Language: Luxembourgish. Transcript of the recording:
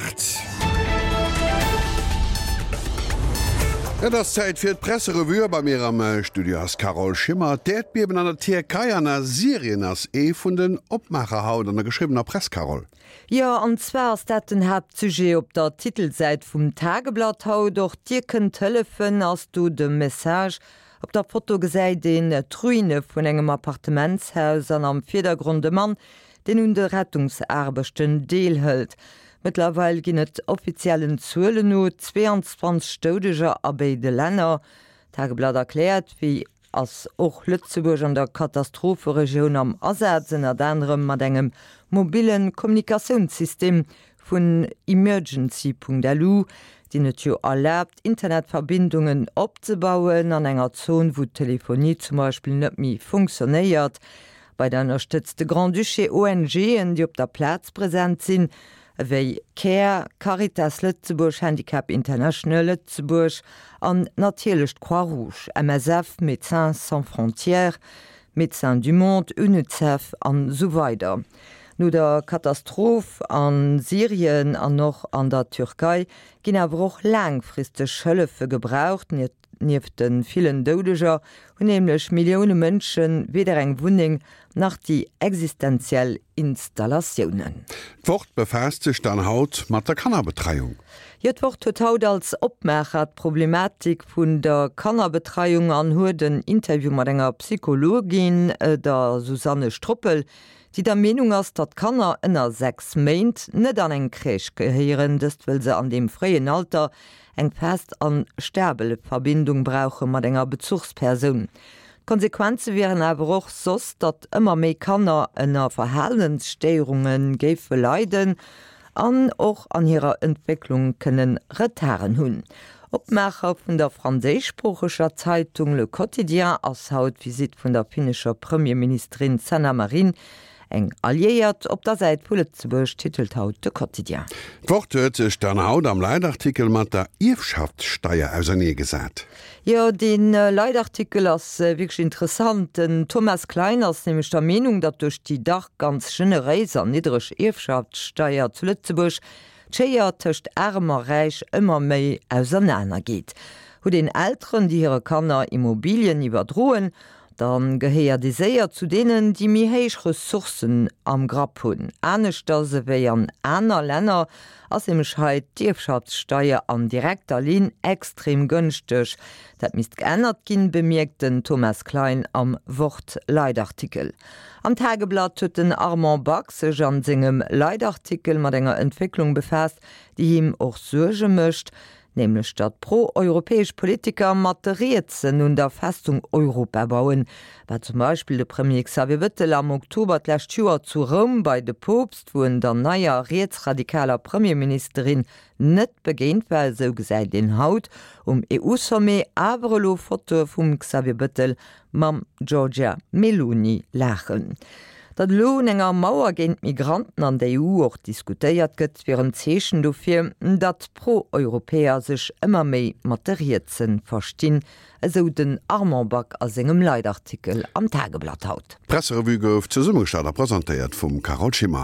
8. Et ass Zäit fir d'Presserevue a bei mir am Studio ass d'Carole Schimmer. D'Äerdbiewen an der Tierkei an a Syrien ass ee vun den Opmaacher haut an der geschriwwener Press, Carole. Jo, an zwar ass dat den Haaptsujet op der Titelsäit vum Tageblatt haut. Och Dir kënnt hëllefen, ass do de Message. Op der Foto gesäit een d'Ruine vun engem Appartementshaus an am Virdergrond e Mann, deen un de Rettungsaarbechten deelhëlt. Mëttlerweil ginn et offiziellen Zuelen no 22 Doudeger a béide Länner. D'Tageblatt erkläert, wéi ass och Lëtzebuerg an der Katastropheregioun am Asaz, ënnert anerem mat engem mobille Kommunikatiounssystem vun Emergency.lu, deen et jo erlaabt, Internetverbindungen opzebauen an enger Zon, wou d'Telefonie zum Beispill net méi funktionéiert. Weider ënnerstëtzt de Grand-Duché ONGen, déi op der Plaz present sinn, ewéi Care, Caritas Lëtzebuerg, Handicap International Lëtzebuerg an natierlech d'Croix-Rouge, MSF, Médecins Sans Frontières, Médecins du Monde, Unicef an esou weider. No der Katastroph a Syrien an och an der Türkei ginn awer och laangfristeg Hëllefe gebraucht. Nieft de villen Doudeger hunn nämlech Millioune Mënsche weder eng Wunneng nach déi existenziell Installatiounen. D'Wort befaasst sech dann haut mat der Kannerbetreiung. Jo, d'Wort huet haut als Opmaacher d'Problematik vun der Kannerbetreiung an huet en Interview mat enger Psychologin, der Susanne Stroppel, déi der Meenung ass, datt Kanner ënner 6 Méint net an eng Crèche gehéieren, dëst wëll se an deem fréien Alter eng fest an stabel Verbindung brauche mat enger Bezuchspersoun. D'Konsequenze wieren awer och soss, datt ëmmer méi Kanner ënner Verhalensstéierunge géife leiden an och an hirer Entwécklung kënne Retarden hunn. Opmaacher vun der franséischsproocheger Zeitung Le Quotidien ass haut d'Visitt vun der finnescher Premierministerin Sanna Marin Eng Alliéiert op der Säit vu Lëtzebuerg, titelt haut de Quotidien. D'Wort huet sech dann haut am Leitartikel mat der Ierfschaftssteier auserneegesat. Jo, dee Leitartikel ass wierklech interessant. Den Thomas Klein ass nämlech der Meenung, datt duerch déi dach ganz generéis an niddereg Ierfschaftssteier zu Lëtzebuerg d'Schéier tëscht Aarem a Räich ëmmer méi ausernaner geet. Huet een Elteren, déi hire Kanner Immobilien iwwerdroen, Da gehéiert ee séier zu deenen, déi méi héich Ressourcen am Grapp hunn. Aneschters ewéi an aner Länner ass nämlech hei d'Ierfschaftssteier an direkter Linn extrem gënschteg. Dat misst geännert ginn, bemierkt den Thomas Klein am Wort-Leitartikel. Am Tageblatt huet den Armand Back sech an sengem Leitartikel mat enger Entwécklung befaasst, déi him och Suerge mécht. Nämlech datt pro-europäesch Politiker mat de Rietsen un der Festung Europa bauen, wat zum Beispill de Premier Xavier Bettel am Oktober d'lescht Joer zu Roum bei de Poopst, wou en der neier rietsradikaler Premierministerin net begéint war. Esou gesäit een haut um EU-Sommet awer elo Fotoe vum Xavier Bettel mam Giorgia Meloni laachen. Datt elo un enger Mauer géint Migranten an der EU och diskutéiert gëtt, wier en Zeechen dofir, datt d'Pro-Europäer sech ëmmer méi mat de Rietse verstinn, esou den Armand Back a sengem Leitartikel am Tageblatt haut. D'Presserevue gouf zesummegestallt a presentéiert vum Carole Schimmer.